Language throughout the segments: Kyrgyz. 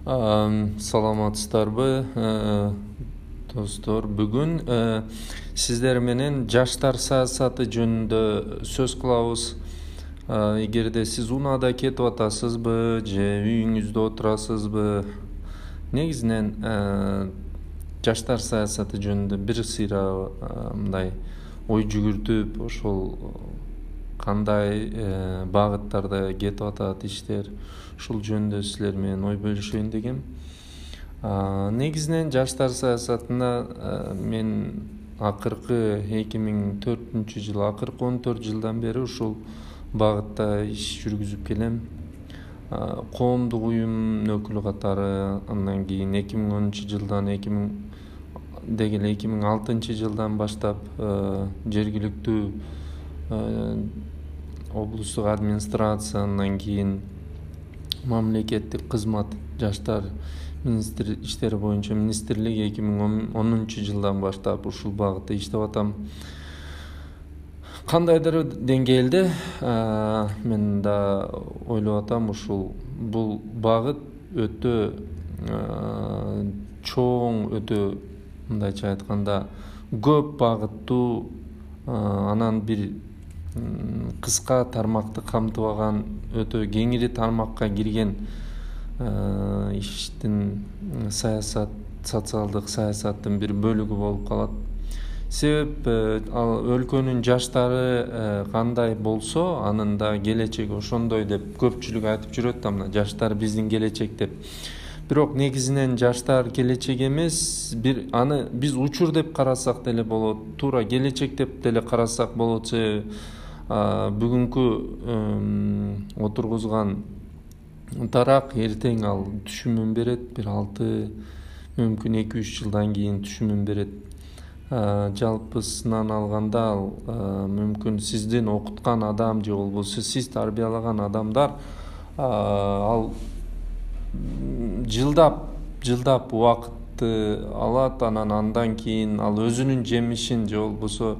Саламатсыздарбы, достор. Бүгүн сиздер менен жаштар саясаты жөнүндө сөз кылабыз. Эгерде сиз унаада кетип атасызбы же үйүңүздө отурасызбы, негизинен жаштар саясаты жөнүндө бир сыйра мындай ой жүгүртүп, ошол кандай багыттарда кетип атат иштер, ушул жөнүндө силер менен ой бөлүшөйүн дегем. Негизинен жаштар саясатына мен акыркы 2004-жылы, акыркы 14 жылдан бери ушул багытта иш жүргүзүп келем. Коомдук уюм өкүлү катары, андан кийин 2010-жылдан 2006-жылдан баштап жергиликтүү облустук администрация, андан кийин мамлекеттик кызмат жаштар иштери боюнча министрлик 2010-жылдан баштап ушул багытта иштеп атам. Кандайдыр деңгээлде мен да ойлоп атам, бул багыт өтө чоң, өтө мындайча айтканда көп багыттуу, анан бир кыска тармакты камтыбаган, өтө кеңири тармакка кирген иштин социалдык саясаттын бир бөлүгү болуп калат. Себеп ал өлкөнүн жаштары кандай болсо, анын да келечеги ошондой деп көпчүлүк айтып жүрөт да, мына жаштар биздин келечек деп. Бирок негизинен жаштар келечек эмес, аны биз учур деп карасак деле болот, туура келечек деп деле карасак болот. Себеби бүгүнкү отургузган тарак эртең ал түшүмүн берет, бир 6, мүмкүн 2-3 жылдан кийин түшүмүн берет. Жалпысынан алганда ал мүмкүн сиздин окуткан адам же болбосо сиз тарбиялаган адамдар ал жылдап убакытты алат, андан кийин ал өзүнүн жемишин же болбосо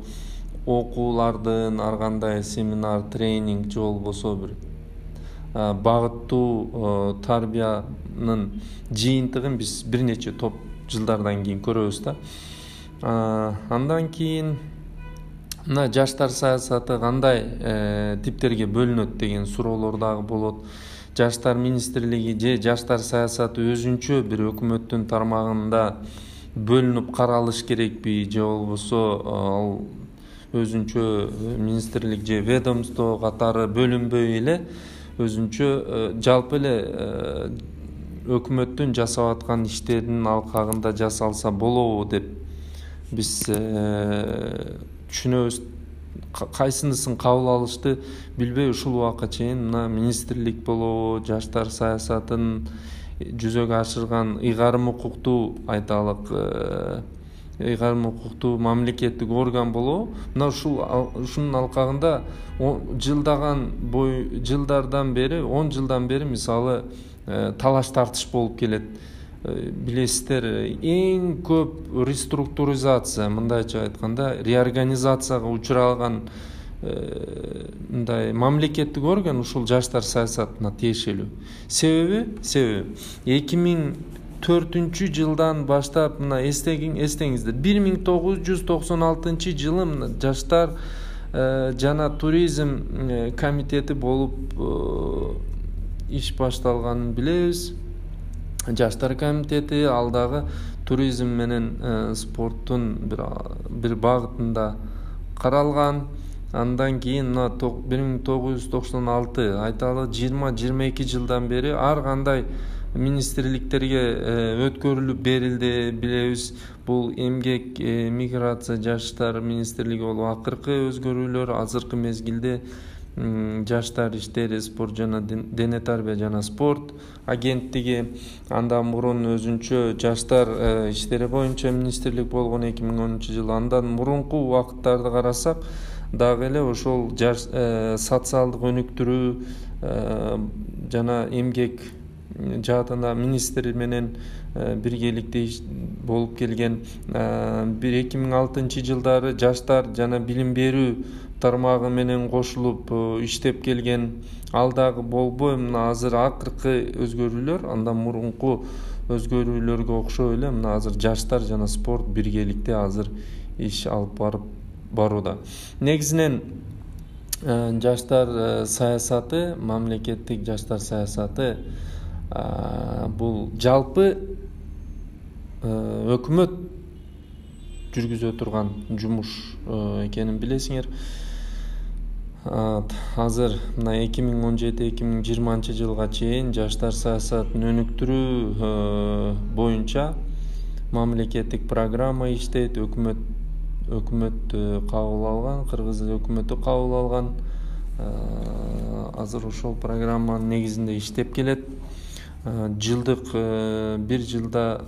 окуулардын ар кандай семинар, тренинг же болбосо бир багыттуу тарбиянын жыйынтыгын биз бир нече топ жылдардан кийин көрөбүз да. Андан кийин мына жаштар саясаты кандай типтерге бөлүнөт деген суроолор дагы болот. Жаштар министрлиги же жаштар саясаты өзүнчө бир өкмөттүн тармагында бөлүнүп каралыш керекпи, же болбосо ал өзүнчө министрлик же ведомство катары бөлүнбөй эле өзүнчө жалпы эле өкмөттүн жасап аткан иштеринин алкагында жасалса болобу деп биз түшүнөбүз. Кайсынысын кабыл алышты билбей ушул убакка чейин мына министрлик болобу, жаштар саясатын жүзөгө ашырган ыйгарым укуктуу, айталык ыйгарым укуктуу мамлекеттик орган болобу, мына ушунун алкагында жылдардан бери 10 жылдан бери мисалы талаш тартыш болуп келет. Билесиздер, эң көп реструктуризация, мындайча айтканда реорганизацияга учураган мындай мамлекеттик орган ушул жаштар саясатына тиешелүү. Себеби 2004-жылдан баштап мына эстеңиздер, 1996-жылы мына жаштар жана туризм комитети болуп иш башталганын билебиз. Жаштар комитети ал дагы туризм менен спорттун бир багытында каралган. Андан кийин мына 1996, айталы 20-22 жылдан бери ар кандай министрликтерге өткөрүлүп берилди, билебиз. Бул эмгек, миграция, жаштар министрлиги болуп акыркы өзгөрүүлөр, азыркы мезгилде жаштар иштери, спорт жана дене тарбия жана спорт агенттиги. Андан мурун өзүнчө жаштар иштери боюнча министрлик болгон 2010-жылы. Андан мурунку убакыттарды карасак дагы эле ошол социалдык өнүктүрүү жана эмгек жаатында министр менен биргеликте болуп келген. 2006-жылдары жаштар жана билим берүү тармагы менен кошулуп иштеп келген. Ал дагы болбой мына азыр акыркы өзгөрүүлөр андан мурунку өзгөрүүлөргө окшой эле мына азыр жаштар жана спорт биргеликте азыр иш алып барууда. Негизинен жаштар саясаты, мамлекеттик жаштар саясаты бул жалпы өкмөт жүргүзө турган жумуш экенин билесиңер. Азыр мына 2017-2020 жылга чейин жаштар саясатын өнүктүрүү боюнча мамлекеттик программа иштейт, өкмөт кабыл алган, кыргыз өкмөтү кабыл алган. Азыр ошол программанын негизинде иштеп келет. Жылдык бир жылда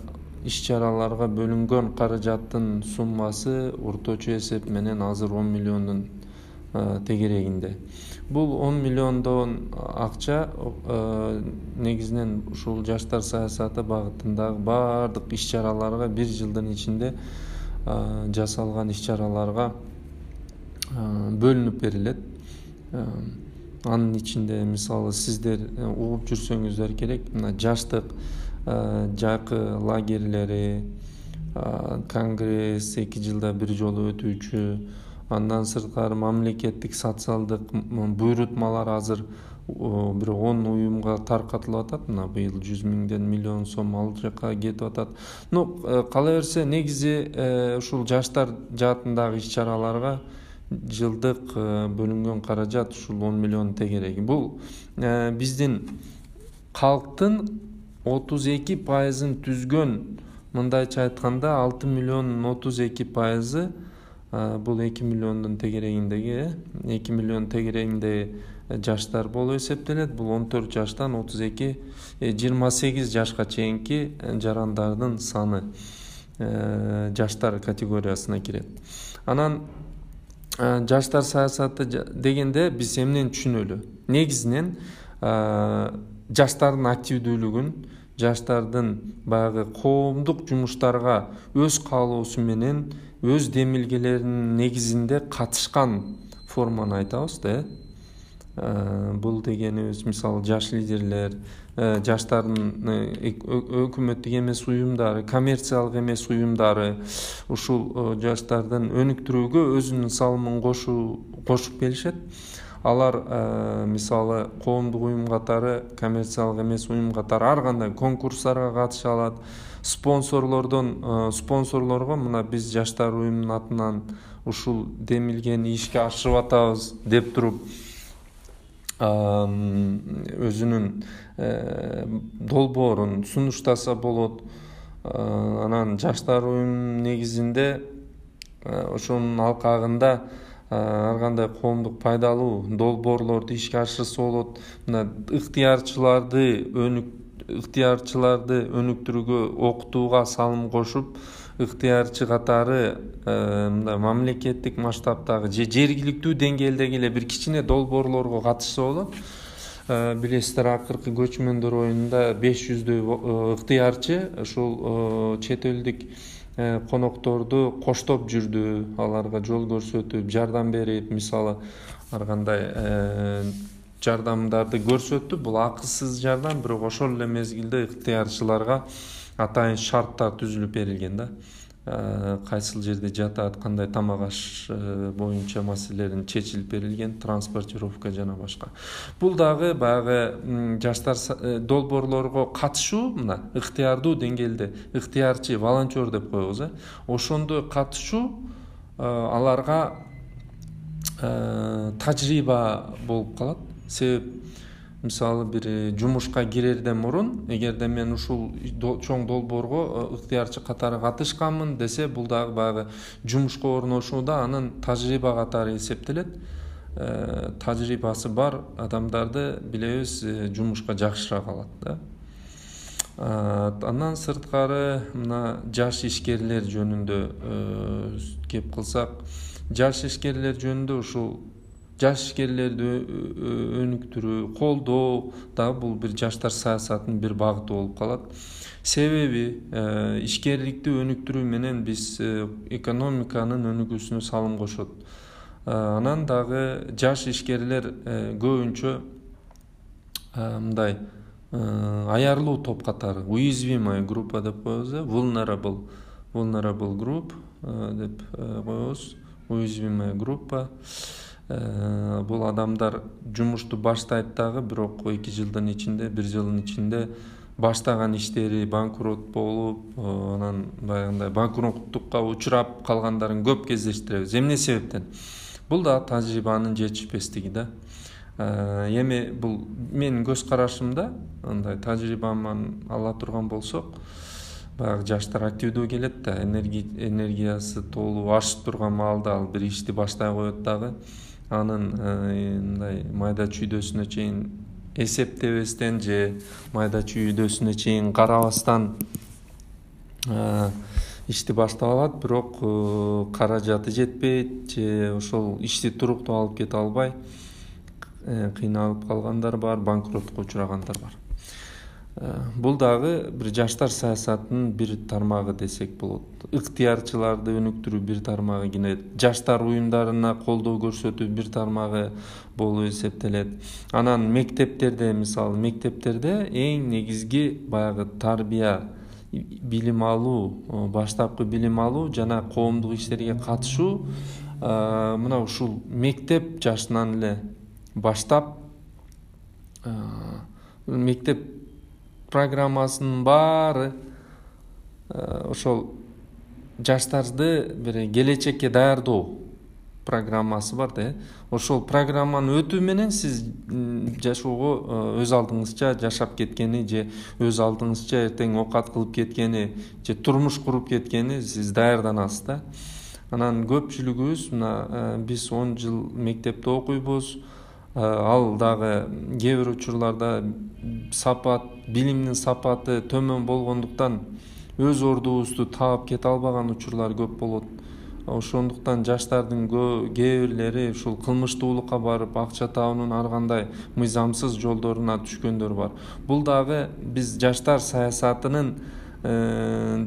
иш-чараларга бөлүнгөн каражаттын суммасы орточо эсеп менен азыр 10 миллиондун тегерегинде. Бул 10 миллиондон акча негизинен ушул жаштар саясаты багытындагы баардык иш-чараларга бир жылдын ичинде жасалган иш-чараларга бөлүнүп берилет. Анын ичинде мисалы сиздер угуп жүрсөңүздөр керек, мына жаштык жакы лагерлери, конгресс 2 жылда бир жолу өтүүчү, андан сырткары мамлекеттик социалдык буйрутмалар азыр бир 10 уюмга таркатылып атат. Мына быйыл 100 миңден миллион сом ал жака кетип атат. Кала берсе негизи ушул жаштар жаатындагы иш-чараларга жылдык бөлүнгөн каражат ушул 10 миллион тегереги. Бул биздин калктын 32%-ын түзгөн, мындайча айтканда 6 миллиондун 32%-ы бул 2 миллиондун тегерегиндеги 2 миллион тегерегинде жаштар болуп эсептелет. Бул 14 жаштан 28 жашка чейинки жарандардын саны жаштар категориясына кирет. Анан жаштар саясаты дегенде биз эмнени түшүнөлү? Негизинен жаштардын активдүүлүгүн, жаштардын баягы коомдук жумуштарга өз каалоосу менен, өз демилгелеринин негизинде катышкан форманы айтабыз да. Бул дегенибиз мисалы жаш лидерлер, жаштардын өкмөттүк эмес уюмдары, коммерциялык эмес уюмдары ушул жаштардын өнүктүрүүгө өзүнүн салымын кошуп келишет. Алар мисалы коомдук уюм катары, коммерциялык эмес уюм катары ар кандай конкурстарга катыша алат. Спонсорлорго мына биз жаштар уюмунун атынан ушул демилгени ишке ашырып атабыз деп туруп өзүнүн долбоорун сунуштаса болот. Анан жаштар уюмунун негизинде ошонун алкагында ар кандай коомдук пайдалуу долбоорлорду ишке ашырса болот. Мына ыктыярчыларды өнүктүрүүгө, окутууга салым кошуп, ыктыярчы катары мындай мамлекеттик масштабтагы же жергиликтүү деңгээлдеги эле бир кичине долбоорлорго катышса болот. Билесиздер, акыркы көчмөндөр оюнунда 500дөй ыктыярчы ушул чет элдик конокторду коштоп жүрдү, аларга жол көрсөтүп, жардам берип, мисалы ар кандай жардамдарды көрсөттү. Бул акысыз жардам, бирок ошол эле мезгилде ыктыярчыларга атайын шарттар түзүлүп берилген да. Кайсыл жерде жатат, кандай тамак аш боюнча маселелерин чечилип берилген, транспортировка жана башка. Бул дагы баягы жаштар долбоорлорго катышуу, мына ыктыярдуу деңгээлде ыктыярчы, волонтер деп коебуз, ошондой катышуу аларга тажрыйба болуп калат. Себеп мисалы бир жумушка кирерден мурун, эгерде мен ушул чоң долбоорго ыктыярчы катары катышканмын десе, бул дагы баягы жумушка орношууда анын тажрыйба катары эсептелет. Тажрыйбасы бар адамдарды билебиз жумушка жакшыраак алат да. Андан сырткары мына жаш ишкерлер жөнүндө кеп кылсак, жаш ишкерлер жөнүндө ушул жаш ишкерлерди өнүктүрүү, колдоо дагы бул бир жаштар саясатынын бир багыты болуп калат. Себеби ишкерликти өнүктүрүү менен биз экономиканын өнүгүүсүнө салым кошот. Анан дагы жаш ишкерлер көбүнчө мындай аярлуу топ катары, уязвимая группа деп коебуз, vulnerable group деп коебуз, уязвимая группа. Бул адамдар жумушту баштайт дагы, бирок 2 жылдын ичинде, 1 жылдын ичинде баштаган иштери банкрот болуп, анан баягындай банкроттукка учурап калгандарын көп кездештиребиз. Эмне себептен? Бул да тажрыйбанын жетишпестиги да. Эми бул менин көз карашымда, андай тажрыйбаман ала турган болсок, баягы жаштар активдүү келет да, энергиясы толуу ашып турган маалда ал бир ишти баштай коет дагы. Анын мындай майда чүйдөсүнө чейин эсептебестен же майда чүйдөсүнө чейин карабастан ишти баштап алат, бирок каражаты жетпейт же ошол ишти туруктуу алып кете албай кыйналып калгандар бар, банкротко учурагандар бар. Бул дагы бир жаштар саясатынын бир тармагы десек болот. Ыктыярчыларды өнүктүрүү бир тармагы, кийин жаштар уюмдарына колдоо көрсөтүү бир тармагы болуп эсептелет. Анан мектептерде, мисалы мектептерде эң негизги баягы тарбия, билим алуу, баштапкы билим алуу жана коомдук иштерге катышуу мына ушул мектеп жашынан эле баштап мектеп программасынын баары ошол жаштарды бир келечекке даярдоо программасы бар да. Ошол программаны өтүү менен сиз жашоого өз алдыңызча жашап кеткени же өз алдыңызча эртең окат кылып кеткени же турмуш куруп кеткени сиз даярданасыз да. Анан көпчүлүгүбүз мына биз 10 жыл мектепте окуйбуз. Ал дагы кээ бир учурларда билимдин сапаты төмөн болгондуктан өз ордубузду таап кете албаган учурлар көп болот. Ошондуктан жаштардын кээ бирлери ушул кылмыштуулукка барып акча табуунун ар кандай мыйзамсыз жолдоруна түшкөндөр бар. Бул дагы биз жаштар саясатынын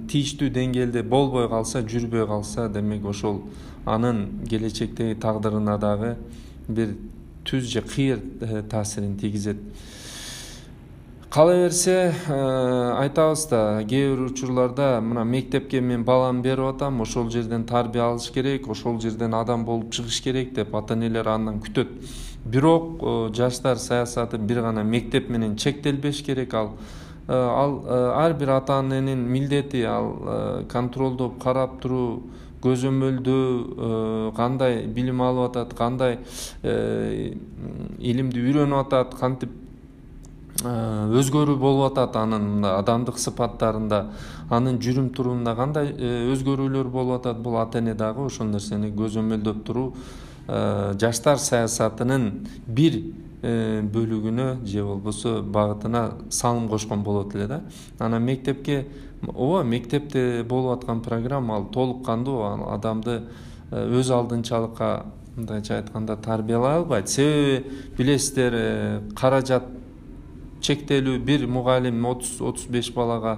тийиштүү деңгээлде болбой калса, жүрбөй калса, демек ошол анын келечектеги тагдырына дагы бир түз же кыйыр таасирин тийгизет. Кала берсе айтабыз да, кээ бир учурларда мына мектепке мен баламды берип атам, ошол жерден тарбия алыш керек, ошол жерден адам болуп чыгыш керек деп ата-энелер андан күтөт. Бирок жаштар саясаты бир гана мектеп менен чектелбеш керек. Ал ар бир ата-эненин милдети, ал контролдоп карап туруу, көзөмөлдөө, кандай билим алып атат, кандай илимди үйрөнүп атат, кантип өзгөрүү болуп атат, анын адамдык сыпаттарында, анын жүрүм турумунда кандай өзгөрүүлөр болуп атат. Бул ата-эне дагы ошол нерсени көзөмөлдөп туруу жаштар саясатынын бир бөлүгүнө же болбосо багытына салым кошкон болот эле да. Анан мектепке, мектепте болуп аткан программа ал толук кандуу адамды өз алдынчалыкка, мындайча айтканда, тарбиялай албайт. Себеби билесиздер, каражат чектелүү, бир мугалим 30-35 балага,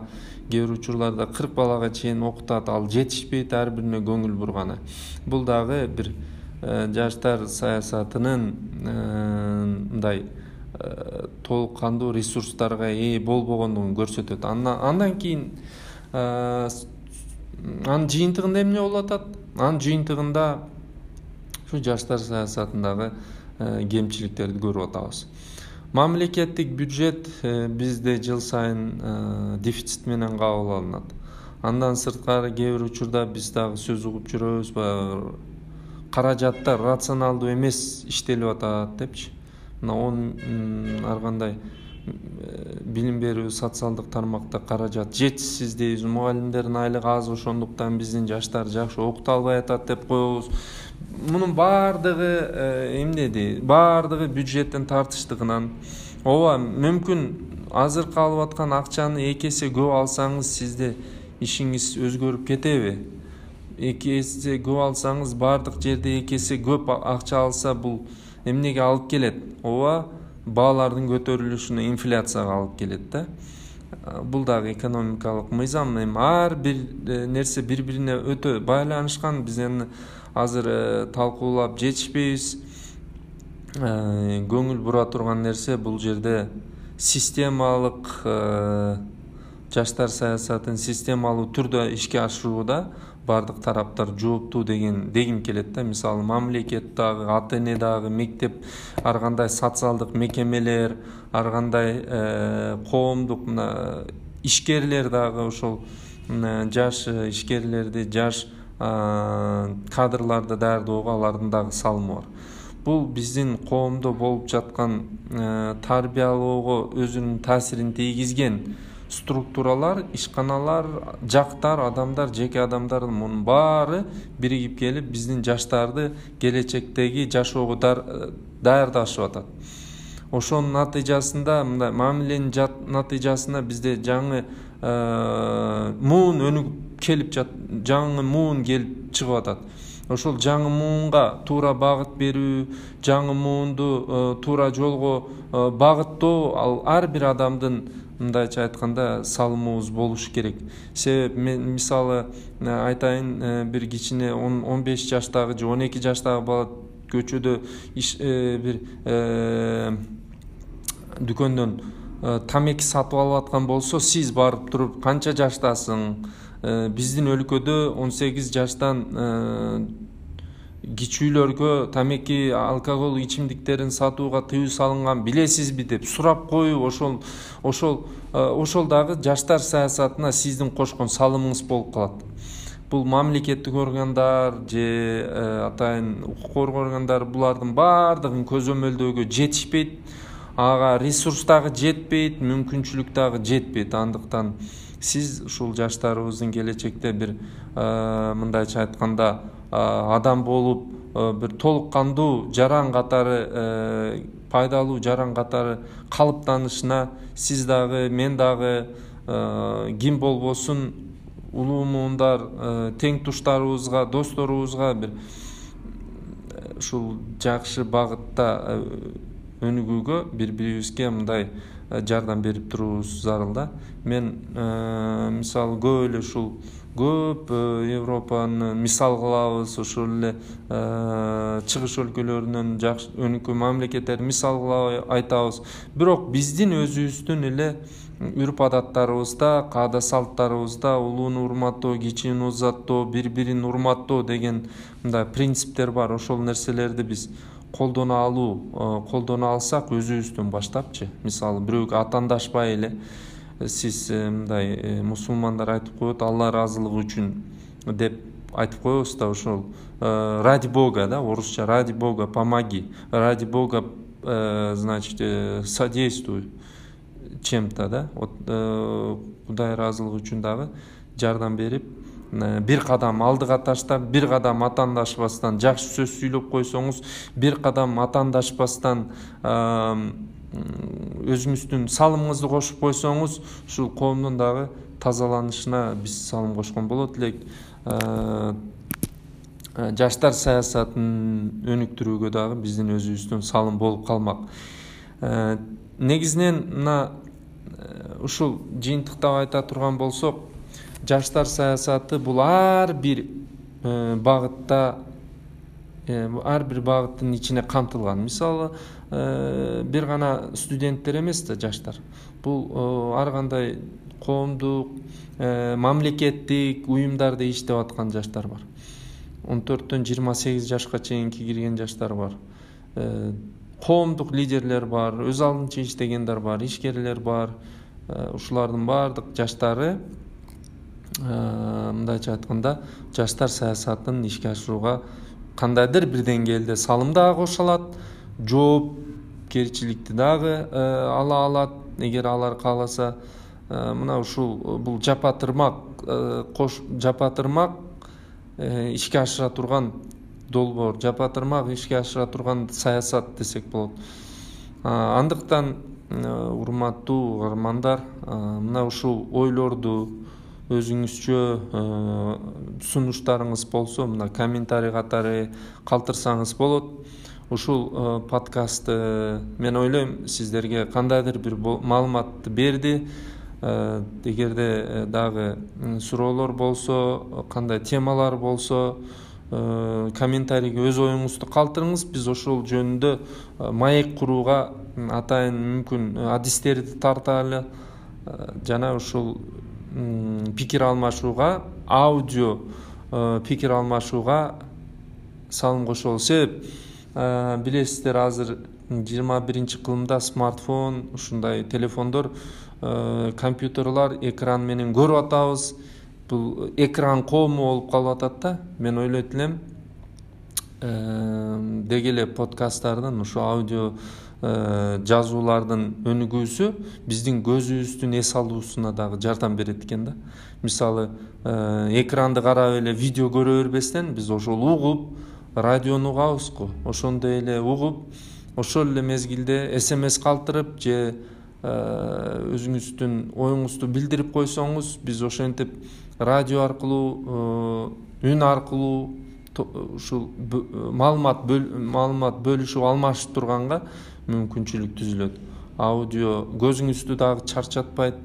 кээ бир учурларда 40 балага чейин окутат, ал жетишпейт ар бирине көңүл бурганы. Бул дагы бир жаштар саясатынын мындай толук кандуу ресурстарга ээ болбогондугун көрсөтөт. Андан кийин анын жыйынтыгында эмне болуп атат? Анын жыйынтыгында ушу жаштар саясатындагы кемчиликтерди көрүп атабыз. Мамлекеттик бюджет бизде жыл сайын дефицит менен кабыл алынат. Андан сырткары кээ бир учурда биз дагы сөз угуп жүрөбүз, каражаттар рационалдуу эмес иштелип атат депчи. Мына ар кандай билим берүү, социалдык тармакта каражат жетишсиз дейбиз, мугалимдердин айлыгы аз, ошондуктан биздин жаштар жакшы окута албай атат деп коебуз. Мунун баардыгы эмнеди? Баардыгы бюджеттин тартыштыгынан. Мүмкүн азыркы алып аткан акчаны 2 эсе көп алсаңыз, сизде ишиңиз өзгөрүп кетеби? 2 эсе көп алсаңыз, баардык жерде 2 эсе көп акча алса, бул эмнеге алып келет? Баалардын көтөрүлүшүнө, инфляцияга алып келет да. бул дагы экономикалык мыйзам. Эми ар бир нерсе бири бирине өтө байланышкан. Биз эми азыр талкуулап жетишпейбиз. Көңүл бура турган нерсе бул жерде системалык жаштар саясатын системалуу түрдө ишке ашырууда бардык тараптар жооптуу дегим келет да. Мисалы мамлекет дагы, ата эне дагы, мектеп, ар кандай социалдык мекемелер, ар кандай коомдук ишкерлер дагы ошол жаш ишкерлерди, жаш кадрларды даярдоого алардын дагы салымы бар. Бул биздин коомдо болуп жаткан тарбиялоого өзүнүн таасирин тийгизген структуралар, ишканалар, жактар, адамдар, жеке адамдардын мунун баары биригип келип биздин жаштарды келечектеги жашоого даярдашып атат. Ошонун натыйжасында, мындай мамиленин натыйжасында бизде жаңы муун өнүгүп келип жаңы муун келип чыгып атат. Ошол жаңы муунга туура багыт берүү, жаңы муунду туура жолго багыттоо ал ар бир адамдын мындайча айтканда салымыбыз болуш керек. Себеби мен мисалы айтайын, бир кичине 15 жаштагы же 12 жаштагы бала көчөдө бир дүкөндөн тамеки сатып алып аткан болсо, сиз барып туруп канча жаштасың? Биздин өлкөдө 18 жаштан кичүүлөргө тамеки алкоголь ичимдиктерин сатууга тыюу салынган билесизби деп сурап коюу, ошол дагы жаштар саясатына сиздин кошкон салымыңыз болуп калат. Бул мамлекеттик органдар же атайын укук коргоо органдары булардын баардыгын көзөмөлдөөгө жетишпейт. Ага ресурс дагы жетпейт, мүмкүнчүлүк дагы жетпейт. Андыктан сиз ушул жаштарыбыздын келечекте бир мындайча айтканда адам болуп бир толук кандуу жаран катары, пайдалуу жаран катары калыптанышына сиз дагы, мен дагы, ким болбосун улуу муундар, тең туштарыбызга, досторубузга бир ушул жакшы багытта өнүгүүгө бири-бирибизге мындай жардам берип туруубуз зарыл да. Мен мисалы көп эле ушул көп Европаны мисал кылабыз, ошол эле чыгыш өлкөлөрүнөн жакшы өнүккөн мамлекеттерди мисал кылып айтабыз. Бирок биздин өзүбүздүн эле үрп адаттарыбызда, каада салттарыбызда улууну урматтоо, кичини узаттоо, бири-бирин урматтоо деген мындай принциптер бар. Ошол нерселерди биз колдоно алсак өзүбүздөн баштапчы. Мисалы бирөөгө атандашпай эле сиз мындай мусулмандар айтып коет, Алла ыраазылыгы үчүн деп айтып коебуз да, ошол ради Бога да, орусча ради Бога помоги, ради Бога значит содействуй чем-то да. Кудай ыраазылыгы үчүн дагы жардам берип, бир кадам алдыга таштап, бир кадам атандашпастан жакшы сөз сүйлөп койсоңуз, бир кадам атандашпастан өзүңүздүн салымыңызды кошуп койсоңуз, ушул коомдун дагы тазаланышына биз салым кошкон болот элек. Жаштар саясатын өнүктүрүүгө дагы биздин өзүбүздүн салым болуп калмак. Негизинен мына ушул жыйынтыктап айта турган болсок, жаштар саясаты бул ар бир багытта, ар бир багыттын ичине камтылган. Мисалы бир гана студенттер эмес да жаштар. Бул ар кандай коомдук, мамлекеттик уюмдарда иштеп аткан жаштар бар. 14-төн 28 жашка чейинки кирген жаштар бар. Коомдук лидерлер бар, өз алдынча иштегендер бар, ишкерлер бар. Ушулардын баардык жаштары мындайча айтканда жаштар саясатын ишке ашырууга кандайдыр бир деңгээлде салым дагы кошо алат, жоопкерчиликти дагы ала алат, эгер алар кааласа. Мына ушул бул жапатырмак ишке ашыра турган долбоор, жапатырмак ишке ашыра турган саясат десек болот. Андыктан урматтуу угармандар, мына ушул ойлорду өзүңүзчө сунуштарыңыз болсо, мына комментарий катары калтырсаңыз болот. Ушул подкастты мен ойлойм сиздерге кандайдыр бир маалыматты берди. эгерде дагы суроолор болсо, кандай темалар болсо, комментарийге өз оюңузду калтырыңыз. Биз ошол жөнүндө маек курууга атайын мүмкүн адистерди тарталы жана ушул пикир алмашууга, аудио пикир алмашууга салым кошолу. Себеп билесиздер, азыр 21-кылымда смартфон, ушундай телефондор, компьютерлар экран менен көрүп атабыз. Бул экран коому болуп калып атат да. Мен ойлойт элем, деги эле подкасттардын, ушу аудио жазуулардын өнүгүүсү биздин көзүбүздүн эс алуусуна дагы жардам берет экен да. Мисалы, экранды карап эле видео көрө бербестен, биз ошол угуп, радиону угабызго. Ошондой эле угуп, ошол эле мезгилде SMS калтырып же өзүңүздүн оюңузду билдирип койсоңуз, биз ошентип радио аркылуу, үн аркылуу ушул маалымат бөлүшүп алмашып турганга мүмкүнчүлүк түзүлөт. Аудио көзүңүздү дагы чарчатпайт.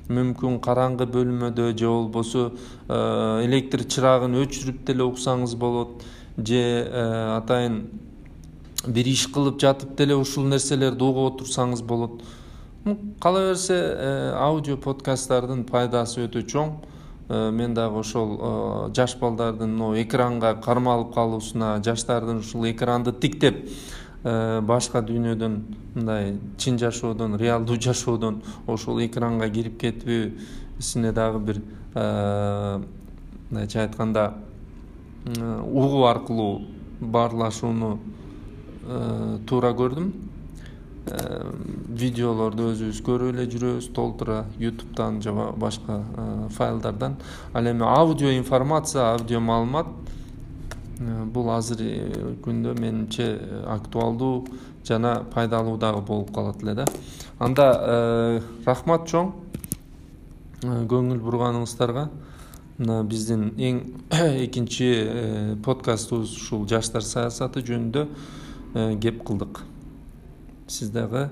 Мүмкүн караңгы бөлмөдө же болбосо электр чырагын өчүрүп деле уксаңыз болот, же атайын бир иш кылып жатып деле ушул нерселерди угуп отурсаңыз болот. Кала берсе, аудио подкасттардын пайдасы өтө чоң. Мен дагы ошол жаш балдардын экранга кармалып калуусуна, жаштардын ушул экранды тиктеп башка дүйнөдөн, мындай чын жашоодон, реалдуу жашоодон ошол экранга кирип кетүүсүнө дагы бир мындайча айтканда угуу аркылуу баарлашууну туура көрдүм. Видеолорду өзүбүз көрүп эле жүрөбүз толтура, YouTube'дан же башка файлдардан. Ал эми аудио информация, аудио маалымат бул азыркы күндө менимче актуалдуу жана пайдалуу дагы болуп калат эле да. Анда рахмат чоң көңүл бурганыңыздарга. Мына биздин эң экинчи подкастыбыз ушул жаштар саясаты жөнүндө кеп кылдык. Сиз дагы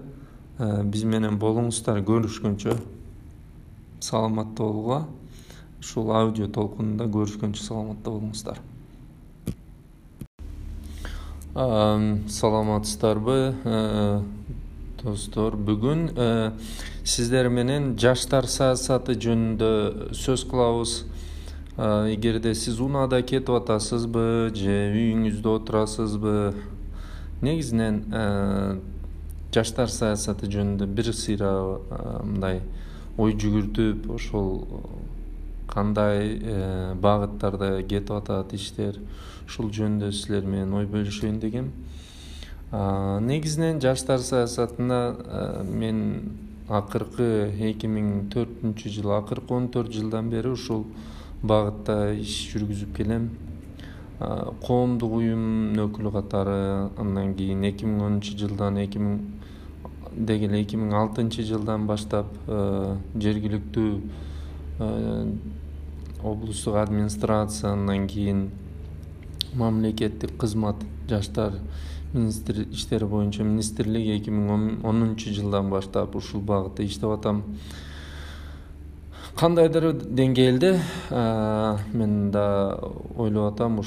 биз менен болуңуздар. Көрүшкөнчө саламатта болууга, ушул аудио толкунунда көрүшкөнчө саламатта болуңуздар. Саламатсыздарбы достор? Бүгүн сиздер менен жаштар саясаты жөнүндө сөз кылабыз. Эгерде сиз унаада кетип атасызбы же үйүңүздө отурасызбы, негизинен жаштар саясаты жөнүндө бир сыйра мындай ой жүгүртүп, ошол кандай багыттарда кетип атат иштер, ушул жөнүндө силер менен ой бөлүшөйүн дегем. Негизинен жаштар саясатына мен акыркы 2004-жыл, акыркы 14 жылдан бери ушул багытта иш жүргүзүп келем. Коомдук уюм өкүлү катары, андан кийин 2010-жылдан 2006-жылдан баштап жергиликтүү облустук администрация, андан кийин мамлекеттик кызмат, жаштар иштери боюнча министрлик 2010-жылдан баштап ушул багытта иштеп атам. Кандайдыр деңгээлде мен да ойлоп атам,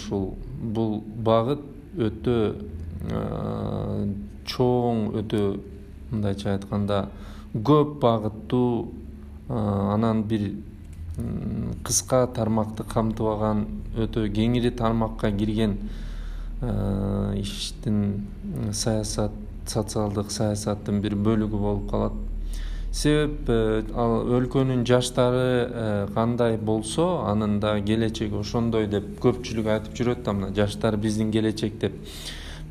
бул багыт өтө чоң, өтө мындайча айтканда көп багыттуу, анан бир кыска тармакты камтыбаган, өтө кеңири тармакка кирген иштин социалдык саясаттын бир бөлүгү болуп калат. Себеп ал өлкөнүн жаштары кандай болсо, анын да келечеги ошондой деп көпчүлүк айтып жүрөт да, мына жаштар биздин келечек деп.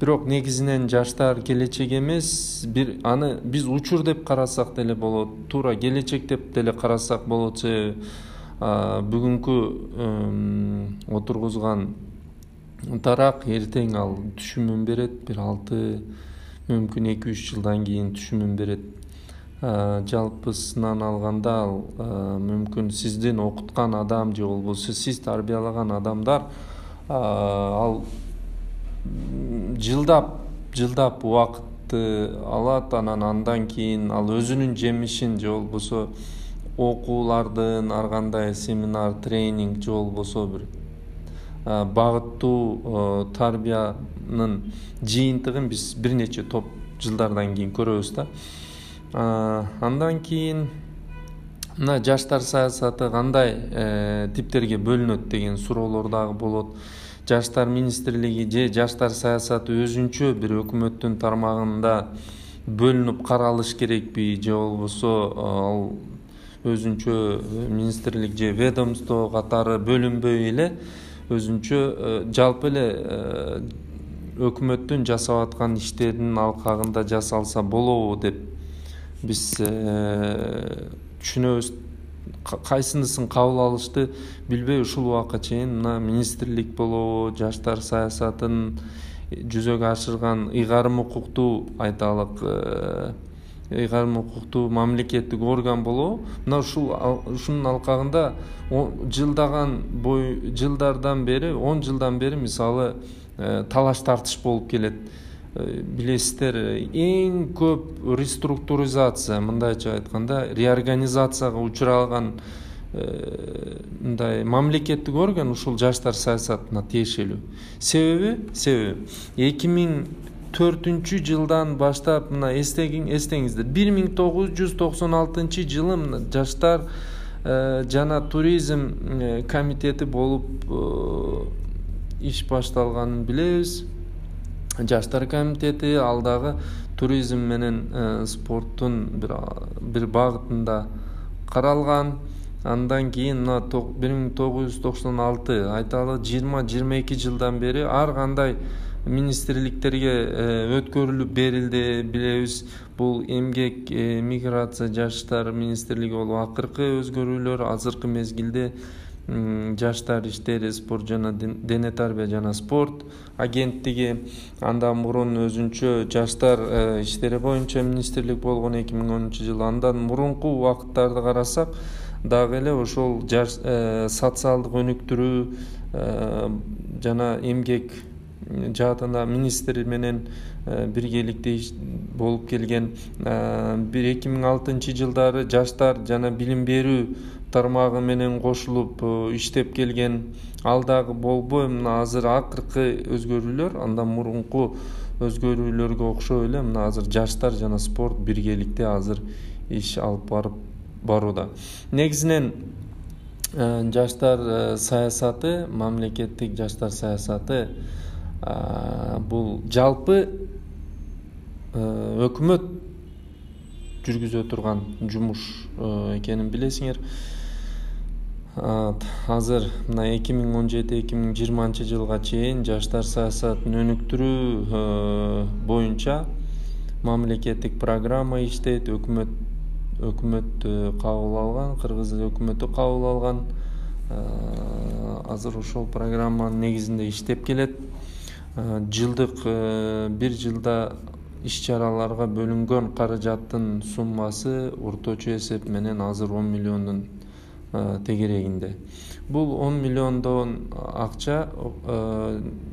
Бирок негизинен жаштар келечек эмес, аны биз учур деп карасак деле болот, туура келечек деп деле карасак болот. Себеби бүгүнкү отургузган тарак эртең ал түшүмүн берет, бир 6, мүмкүн 2-3 жылдан кийин түшүмүн берет. Жалпысынан алганда ал мүмкүн сиздин окуткан адам же болбосо сиз тарбиялаган адамдар ал жылдап убакытты алат, анан кийин ал өзүнүн жемишин же болбосо окуулардын ар кандай семинар, тренинг же болбосо бир багыттуу тарбиянын жыйынтыгын биз бир нече топ жылдардан кийин көрөбүз да. Андан кийин мына жаштар саясаты кандай типтерге бөлүнөт деген суроолор дагы болот. Жаштар министрлиги же жаштар саясаты өзүнчө бир өкмөттүн тармагында бөлүнүп каралыш керекпи же болбосо ал өзүнчө министрлик же ведомство катары бөлүнбөй эле өзүнчө жалпы эле өкмөттүн жасап аткан иштеринин алкагында жасалса болобу деп биз түшүнөбүз. Кайсынысын кабыл алышты билбей ушул убакка чейин мына министрлик болобу, жаштар саясатын жүзөгө ашырган ыйгарым укуктуу айталык ыйгарым укуктуу мамлекеттик орган болобу, мына ушунун алкагында жылдардан бери 10 жылдан бери мисалы талаш тартыш болуп келет. Билесиздер, эң көп реструктуризация, мындайча айтканда реорганизацияга учураган мындай мамлекеттик орган ушул жаштар саясатына тиешелүү. Себеби 2004 жылдан баштап мына эстеңиздер 1996 жылы мына жаштар жана туризм комитети болуп иш башталганын билебиз. Жаштар комитети ал дагы туризм менен спорттун бир багытында каралган. Андан кийин мына 1996 айталы 20-22 жылдан бери ар кандай министрликтерге өткөрүлүп берилди, билебиз. Бул эмгек, миграция, жаштар министрлиги болуп акыркы өзгөрүүлөр азыркы мезгилде жаштар иштери, спорт жана дене тарбия жана спорт агенттиги. Андан мурун өзүнчө жаштар иштери боюнча министрлик болгон 2010 жылы. Андан мурунку убакыттарды карасак дагы эле ошол социалдык өнүктүрүү жана эмгек жаатында министр менен биргеликте болуп келген. 2006 жылдары жаштар жана билим берүү тармагы менен кошулуп иштеп келген. Ал дагы болбой мына азыр акыркы өзгөрүүлөр андан мурунку өзгөрүүлөргө окшой эле мына азыр жаштар жана спорт биргеликте азыр иш алып барууда. Негизинен жаштар саясаты, мамлекеттик жаштар саясаты бул жалпы өкмөт жүргүзө турган жумуш экенин билесиңер. Азыр мына 2017-2020 жылга чейин жаштар саясатын өнүктүрүү боюнча мамлекеттик программа иштейт. Өкмөт кабыл алган, кыргыз өкмөтү кабыл алган. Азыр ошол программанын негизинде иштеп келет. Жылдык бир жылда иш-чараларга бөлүнгөн каражаттын суммасы орточо эсеп менен азыр 10 миллиондун тегерегинде. Бул 10 миллиондон акча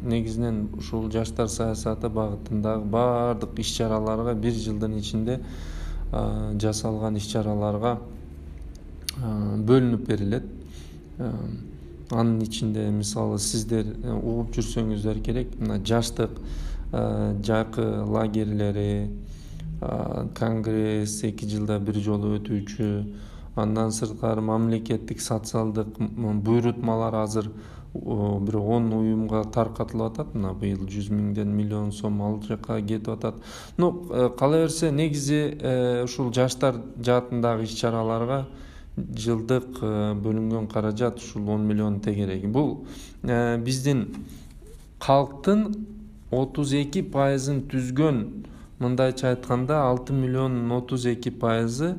негизинен ушул жаштар саясаты багытындагы баардык иш-чараларга бир жылдын ичинде жасалган иш-чараларга бөлүнүп берилет. Анын ичинде мисалы сиздер угуп жүрсөңүздөр керек, мына жаштык жакы лагерлери, конгресс 2 жылда бир жолу өтүүчү, андан сырткары мамлекеттик социалдык буйрутмалар азыр бир 10 уюмга таркатылып атат. Мына быйыл 100 миңден миллион сом ал жакка кетип атат. Кала берсе негизи ушул жаштар жаатындагы иш-чараларга жылдык бөлүнгөн каражат ушул 10 миллион тегереги. Бул биздин калктын 32%-ын түзгөн, мындайча айтканда 6 миллиондун 32%-ы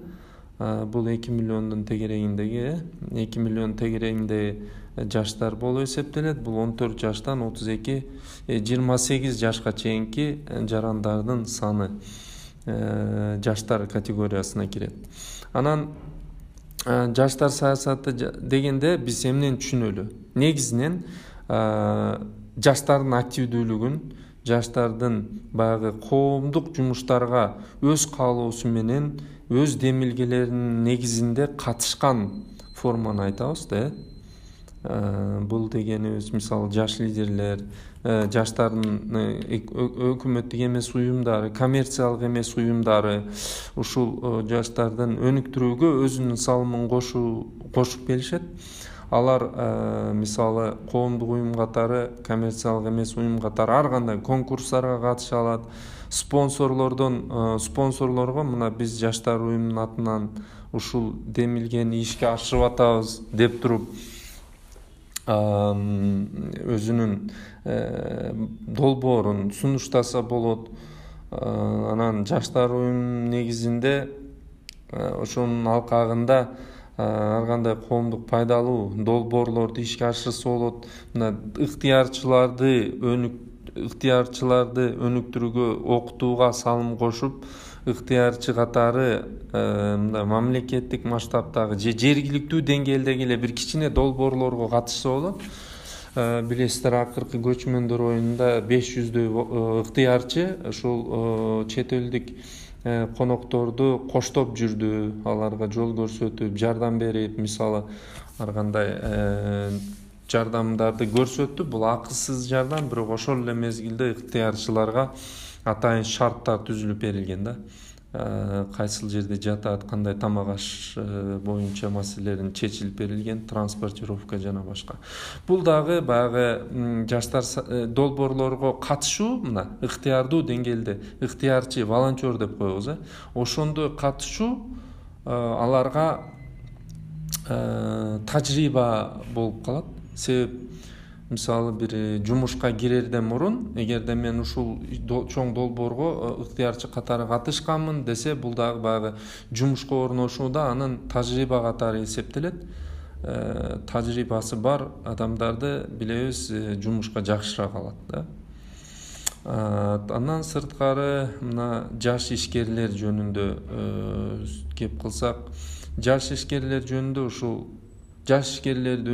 бул 2 миллиондун тегерегиндеги 2 миллион тегерегинде жаштар болуп эсептелет. Бул 14 жаштан 28 жашка чейинки жарандардын саны жаштар категориясына кирет. Анан жаштар саясаты дегенде биз эмнени түшүнөлү? Негизинен жаштардын активдүүлүгүн, жаштардын баягы коомдук жумуштарга өз каалоосу менен өз демилгелеринин негизинде катышкан форманы айтабыз да. Бул дегенибиз мисалы жаш лидерлер, жаштардын өкмөттүк эмес уюмдары, коммерциялык эмес уюмдары ушул жаштардын өнүктүрүүгө өзүнүн салымын кошуп келишет. Алар мисалы коомдук уюм катары, коммерциялык эмес уюм катары ар кандай конкурстарга катыша алат. Спонсорлорго мына биз жаштар уюмунун атынан ушул демилгени ишке ашырып атабыз деп туруп өзүнүн долбоорун сунуштаса болот. Анан жаштар уюмунун негизинде ошонун алкагында ар кандай коомдук пайдалуу долбоорлорду ишке ашырса болот. Мына ыктыярчыларды өнүктүрүүгө, окутууга салым кошуп, ыктыярчы катары мындай мамлекеттик масштабтагы же жергиликтүү деңгээлдеги эле бир кичине долбоорлорго катышса болот. Билесиздер, акыркы көчмөндөр оюнунда 500дөй ыктыярчы ушул чет элдик конокторду коштоп жүрдү, аларга жол көрсөтүп, жардам берип, мисалы ар кандай жардамдарды көрсөттү. Бул акысыз жардам, бирок ошол эле мезгилде ыктыярчыларга атайын шарттар түзүлүп берилген да. Кайсыл жерде жатат, кандай тамак аш боюнча маселелерин чечилип берилген, транспортировка жана башка. Бул дагы баягы жаштар долбоорлорго катышуу, мына ыктыярдуу деңгээлде ыктыярчы, волонтер деп коебуз, ошондо катышуу аларга тажрыйба болуп калат. Себеп мисалы бир жумушка кирерден мурун, эгерде мен ушул чоң долбоорго ыктыярчы катары катышканмын десе, бул дагы баягы жумушка орношууда анын тажрыйба катары эсептелет. Тажрыйбасы бар адамдарды билебиз, жумушка жакшыраак алат да. Андан сырткары мына жаш ишкерлер жөнүндө кеп кылсак, жаш ишкерлер жөнүндө ушул жаш ишкерлерди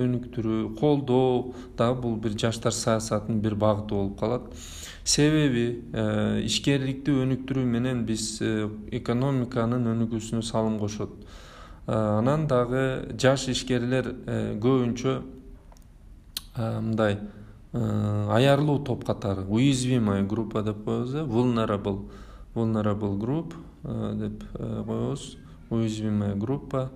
өнүктүрүү, колдоо дагы бул бир жаштар саясатынын бир багыты болуп калат. Себеби ишкерликти өнүктүрүү менен биз экономиканын өнүгүүсүнө салым кошот. Анан дагы жаш ишкерлер көбүнчө мындай аярлуу топ катары, уязвимая группа деп коебуз, vulnerable group деп коебуз, уязвимая группа.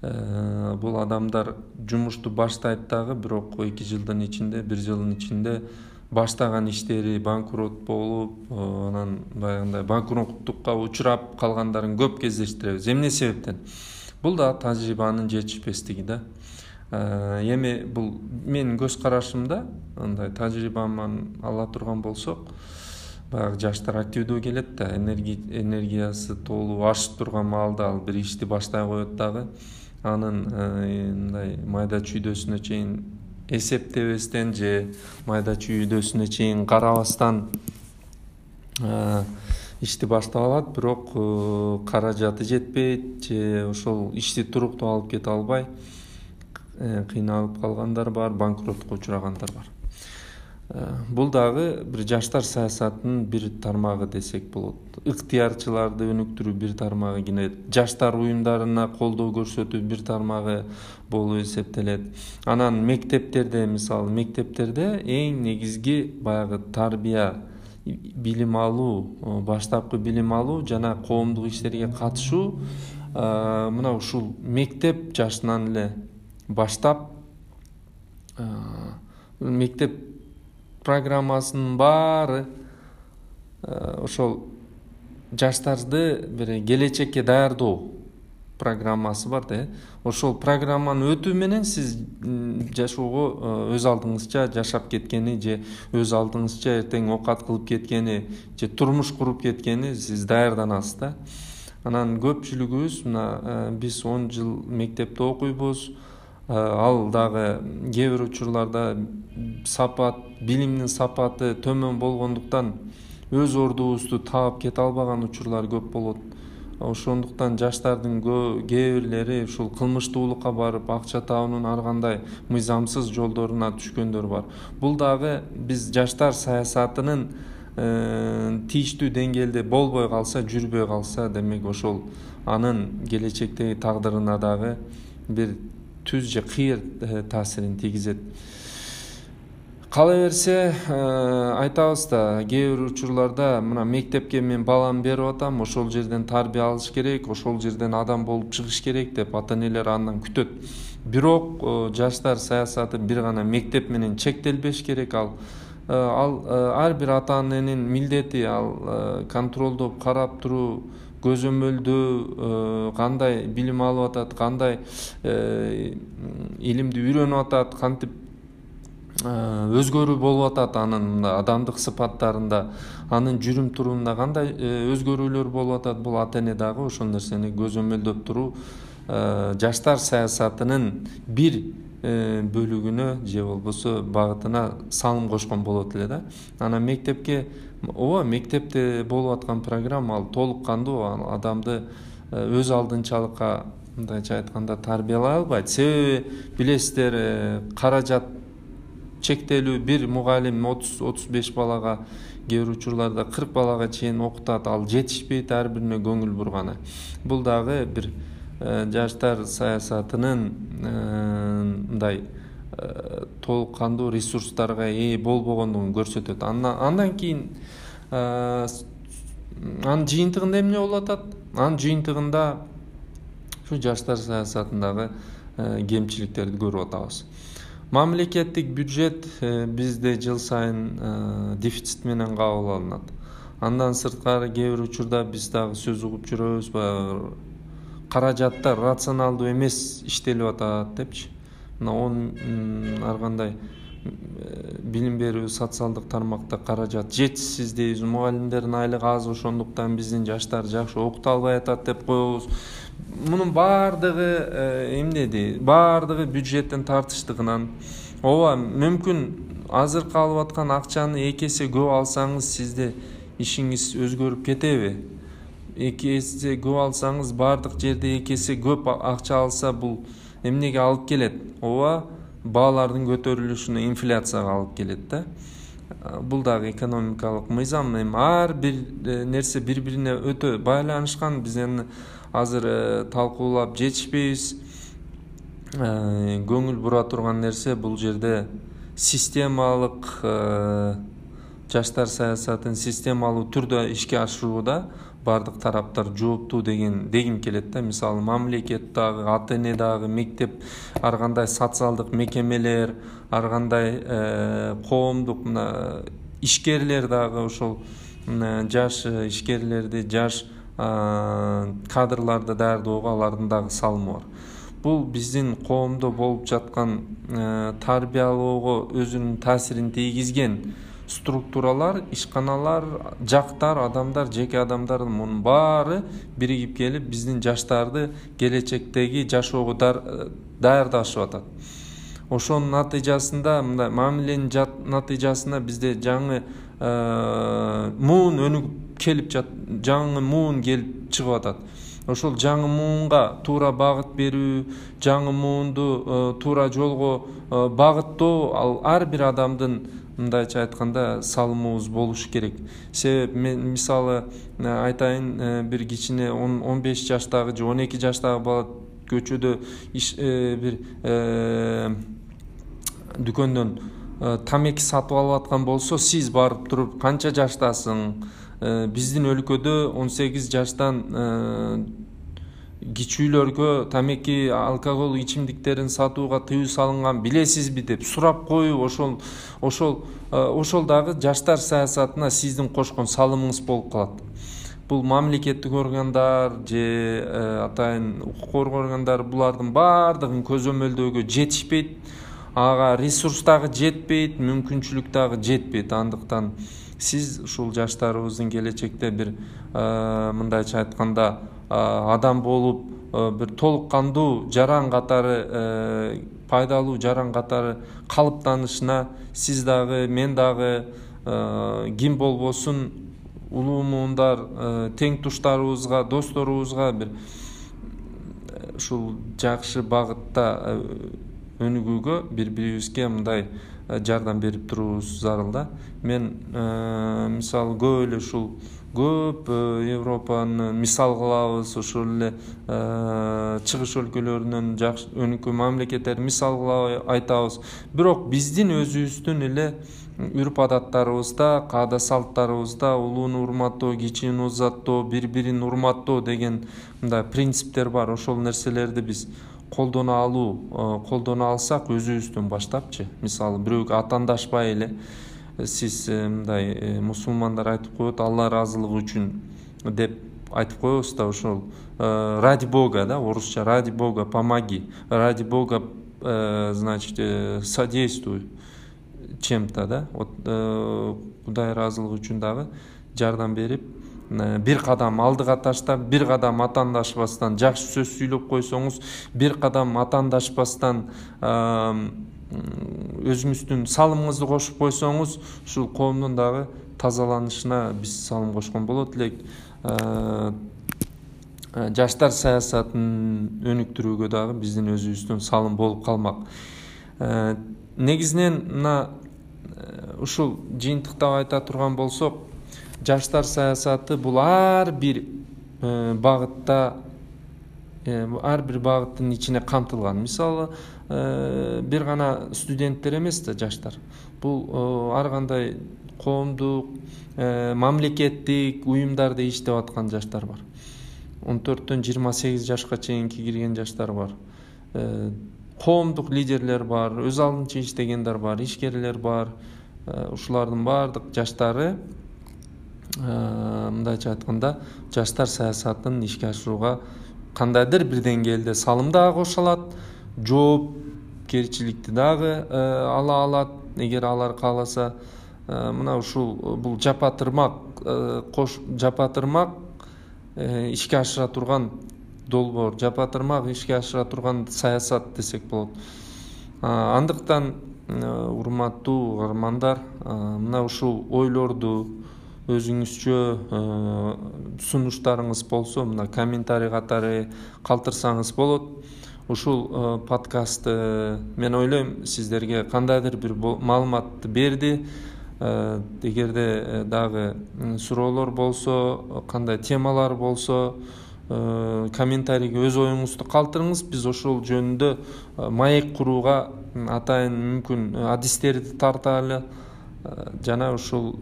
Бул адамдар жумушту баштайт дагы, бирок 2 жылдын ичинде, 1 жылдын ичинде баштаган иштери банкрот болуп, анан баягындай банкроттукка учурап калгандарын көп кездештиребиз. Эмне себептен? Бул да тажрыйбанын жетишпестиги да. Эми бул менин көз карашымда, андай тажрыйбаман ала турган болсок, баягы жаштар активдүү келет да, энергиясы толуу ашып турган маалда ал бир ишти баштай коет дагы. Анын мындай майда чүйдөсүнө чейин эсептебестен же майда чүйдөсүнө чейин карабастан ишти баштап алат, бирок каражаты жетпейт же ошол ишти туруктуу алып кете албай кыйналып калгандар бар, банкротко учурагандар бар. Бул дагы бир жаштар саясатынын бир тармагы десек болот. Ыктыярчыларды өнүктүрүү бир тармагы, кийин жаштар уюмдарына колдоо көрсөтүү бир тармагы болуп эсептелет. Анан мектептерде, мисалы мектептерде эң негизги баягы тарбия, билим алуу, баштапкы билим алуу жана коомдук иштерге катышуу мына ушул мектеп жашынан эле баштап мектеп программасынын баары ошол жаштарды бир келечекке даярдоо программасы бар да. Ошол программаны өтүү менен сиз жашоого өз алдыңызча жашап кеткени же өз алдыңызча эртең оокат кылып кеткени же турмуш куруп кеткени сиз даярданасыз да. Анан көпчүлүгүбүз мына биз 10 жыл мектепте окуйбуз. Ал дагы кээ бир учурларда билимдин сапаты төмөн болгондуктан өз ордубузду таап кете албаган учурлар көп болот. Ошондуктан жаштардын кээ бирлери ушул кылмыштуулукка барып акча табуунун ар кандай мыйзамсыз жолдоруна түшкөндөр бар. Бул дагы биз жаштар саясатынын тийиштүү деңгээлде болбой калса, жүрбөй калса, демек ошол анын келечектеги тагдырына дагы бир түз же кыйыр таасирин тийгизет. Кала берсе айтабыз да, кээ бир учурларда мына мектепке мен баламды берип атам, ошол жерден тарбия алыш керек, ошол жерден адам болуп чыгыш керек деп ата энелер андан күтөт. Бирок жаштар саясаты бир гана мектеп менен чектелбеш керек. Ал ар бир ата эненин милдети, ал контролдоп карап туруу, көзөмөлдөө, кандай билим алып атат, кандай илимди үйрөнүп атат, кантип өзгөрүү болуп атат, анын адамдык сыпаттарында, анын жүрүм турумунда кандай өзгөрүүлөр болуп атат, бул ата эне дагы ошол нерсени көзөмөлдөп туруу жаштар саясатынын бир бөлүгүнө же болбосо багытына салым кошкон болот эле да. Анан мектепке, мектепте болуп аткан программа ал толук кандуу адамды өз алдынчалыкка, мындайча айтканда, тарбиялай албайт. Себеби билесиздер, каражат чектелүү, бир мугалим 30-35 балага, кээ бир учурларда 40 балага чейин окутат, ал жетишпейт ар бирине көңүл бурганы. Бул дагы бир жаштар саясатынын мындай толук кандуу ресурстарга ээ болбогондугун көрсөтөт. Андан кийин анын жыйынтыгында эмне болуп атат? Анын жыйынтыгында ушу жаштар саясатындагы кемчиликтерди көрүп атабыз. Мамлекеттик бюджет бизде жыл сайын дефицит менен кабыл алынат. Андан сырткары кээ бир учурда биз дагы сөз угуп жүрөбүз, каражаттар рационалдуу эмес иштелип атат депчи. Мына ар кандай билим берүү, социалдык тармакта каражат жетишсиз дейбиз, мугалимдердин айлыгы аз, ошондуктан биздин жаштар жакшы окута албай атат деп коебуз. Мунун баардыгы эмнеди? Баардыгы бюджеттин тартыштыгынан. Мүмкүн азыркы алып аткан акчаны 2 эсе көп алсаңыз, сизде ишиңиз өзгөрүп кетеби? 2 эсе көп алсаңыз, баардык жерде 2 эсе көп акча алса, бул эмнеге алып келет? Баалардын көтөрүлүшүнө, инфляцияга алып келет да. Бул дагы экономикалык мыйзам. Ар бир нерсе бири-бирине өтө байланышкан. Биз эми азыр талкуулап жетишпейбиз. Көңүл бура турган нерсе бул жерде системалык жаштар саясатын системалуу түрдө ишке ашырууда бардык тараптар жооптуу дегим келет да. Мисалы, мамлекет дагы, ата эне дагы, мектеп, ар кандай социалдык мекемелер, ар кандай коомдук ишкерлер дагы ошол жаш ишкерлерди, жаш кадрларды даярдоого алардын дагы салымы бар. Бул биздин коомдо болуп жаткан тарбиялоого өзүнүн таасирин тийгизген структуралар, ишканалар, жактар, адамдар, жеке адамдар, мунун баары биригип келип биздин жаштарды келечектеги жашоого даярдашып атат. Ошонун натыйжасында, мындай мамиленин натыйжасында бизде жаңы муун өнүгүп келип жаңы муун келип чыгып атат. Ошол жаңы муунга туура багыт берүү, жаңы муунду туура жолго багыттоо, ал ар бир адамдын, мындайча айтканда, салымыбыз болуш керек. Себеби мен мисалы айтайын, бир кичине 15 жаштагы же 12 жаштагы бала көчөдө бир дүкөндөн тамеки сатып алып аткан болсо, сиз барып туруп канча жаштасың? Биздин өлкөдө 18 жаштан кичүүлөргө тамеки, алкогол ичимдиктерин сатууга тыюу салынган, билесизби деп сурап коюп, ошол дагы жаштар саясатына сиздин кошкон салымыңыз болуп калат. Бул мамлекеттик органдар же атайын укук коргоо органдары булардын баардыгын көзөмөлдөөгө жетишпейт, ага ресурс дагы жетпейт, мүмкүнчүлүк дагы жетпейт. Андыктан сиз ушул жаштарыбыздын келечекте бир мындайча айтканда адам болуп, бир толук кандуу жаран катары, пайдалуу жаран катары калыптанышына сиз дагы, мен дагы, ким болбосун улуу муундар, тең туштарыбызга, досторубузга бир ушул жакшы багытта өнүгүүгө бири бирибизге мындай жардам берип туруубуз зарыл да. Мен мисалы көп эле ушул көп Европаны мисал кылабыз, ошол эле чыгыш өлкөлөрүнөн жакшы өнүккөн мамлекеттерди мисал кылып айтабыз. Бирок биздин өзүбүздүн эле үрп адаттарыбызда, каада салттарыбызда улууну урматтоо, кичини узаттоо, бири-бирин урматтоо деген мындай принциптер бар. Ошол нерселерди биз колдоно алсак өзүбүздөн баштапчы. Мисалы бирөөгө атаандашпай эле сиз мындай мусулмандар айтып коет, Алла ыраазылыгы үчүн деп айтып коебуз да, ошол ради Бога да, орусча ради Бога помоги, ради Бога значит содействуй чем-то да. Кудай ыраазылыгы үчүн дагы жардам берип, бир кадам алдыга таштап, бир кадам атаандашпастан жакшы сөз сүйлөп койсоңуз, бир кадам атаандашпастан өзүңүздүн салымыңызды кошуп койсоңуз, ушул коомдун дагы тазаланышына биз салым кошкон болот элек. Жаштар саясатын өнүктүрүүгө дагы биздин өзүбүздүн салым болуп калмак. Негизинен мына ушул жыйынтыктап айта турган болсок, жаштар саясаты бул ар бир багытта, ар бир багыттын ичине камтылган. Мисалы, бир гана студенттер эмес да жаштар. Бул ар кандай коомдук, мамлекеттик уюмдарда иштеп аткан жаштар бар. 14-төн 28 жашка чейинки кирген жаштар бар. Коомдук лидерлер бар, өз алдынча иштегендер бар, ишкерлер бар. Ушулардын баардык жаштары мындайча айтканда жаштар саясатын ишке ашырууга кандайдыр бир деңгээлде салым дагы кошо алат, жоопкерчиликти дагы ала алат, эгер алар кааласа. Мына ушул бул жапатырмак ишке ашыра турган долбоор, жапатырмак ишке ашыра турган саясат десек болот. Андыктан урматтуу каармандар, мына ушул ойлорду өзүңүзчө сунуштарыңыз болсо, мына комментарий катары калтырсаңыз болот. Ушул подкастты мен ойлойм сиздерге кандайдыр бир маалыматты берди. Эгерде дагы суроолор болсо, кандай темалар болсо, комментарийге өз оюңузду калтырыңыз. Биз ошол жөнүндө маек курууга атайын мүмкүн адистерди тарталы жана ушул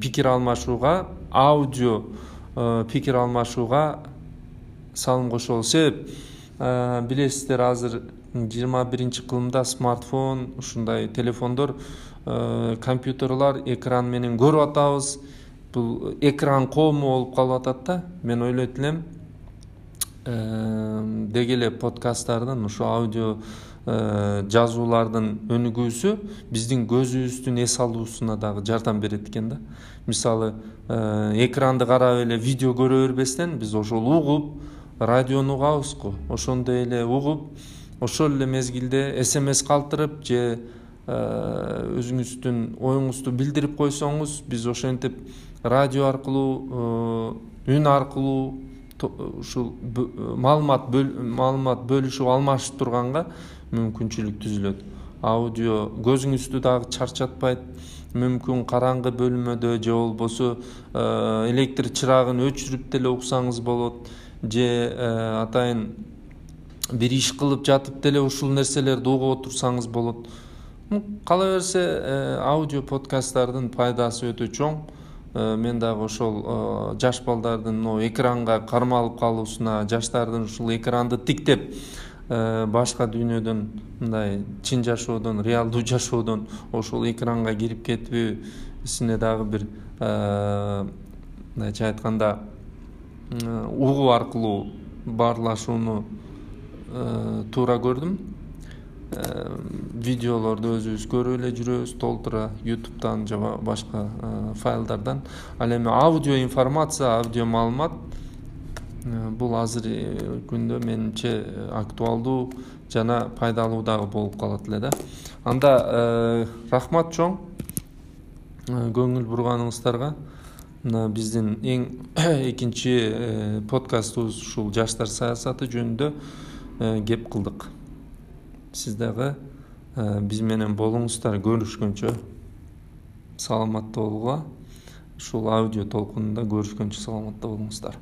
пикир алмашууга, аудио пикир алмашууга салым кошолу. Себеп билесиздер, азыр 21-кылымда смартфон, ушундай телефондор, компьютерлар экран менен көрүп атабыз. Бул экран коому болуп калып атат да. Мен ойлойт элем деги эле подкасттардын, ушу аудио жазуулардын өнүгүүсү биздин көзүбүздүн эс алуусуна дагы жардам берет экен да. Мисалы, экранды карап эле видео көрө бербестен биз ошол угуп, радиону угабыз го. Ошондой эле угуп, ошол эле мезгилде СМС калтырып же өзүңүздүн оюңузду билдирип койсоңуз, биз ошентип радио аркылуу, үн аркылуу ушул маалымат бөлүшүп алмашып турганга мүмкүнчүлүк түзүлөт. Аудио көзүңүздү дагы чарчатпайт. Мүмкүн караңгы бөлмөдө же болбосо электр чырагын өчүрүп деле уксаңыз болот, же атайын бир иш кылып жатып деле ушул нерселерди угуп отурсаңыз болот. Кала берсе, аудио подкасттардын пайдасы өтө чоң. Мен дагы ошол жаш балдардын экранга кармалып калуусуна, жаштардын ушул экранды тиктеп башка дүйнөдөн, мындай чын жашоодон, реалдуу жашоодон ошол экранга кирип кетүүсүнө дагы бир мындайча айтканда угуу аркылуу баарлашууну туура көрдүм. Видеолорду өзүбүз көрүп эле жүрөбүз толтура, YouTube'дан же башка файлдардан. Ал эми аудио информация, аудио маалымат бул азыр күндө менимче актуалдуу жана пайдалуу дагы болуп калат эле да. Анда рахмат чоң көңүл бурганыңыздарга. Мына биздин эң экинчи подкастыбыз ушул жаштар саясаты жөнүндө кеп кылдык. сиз дагы биз менен болуңуздар. Көрүшкөнчө саламатта болууга. Ушул аудио толкунунда көрүшкөнчө саламатта болуңуздар.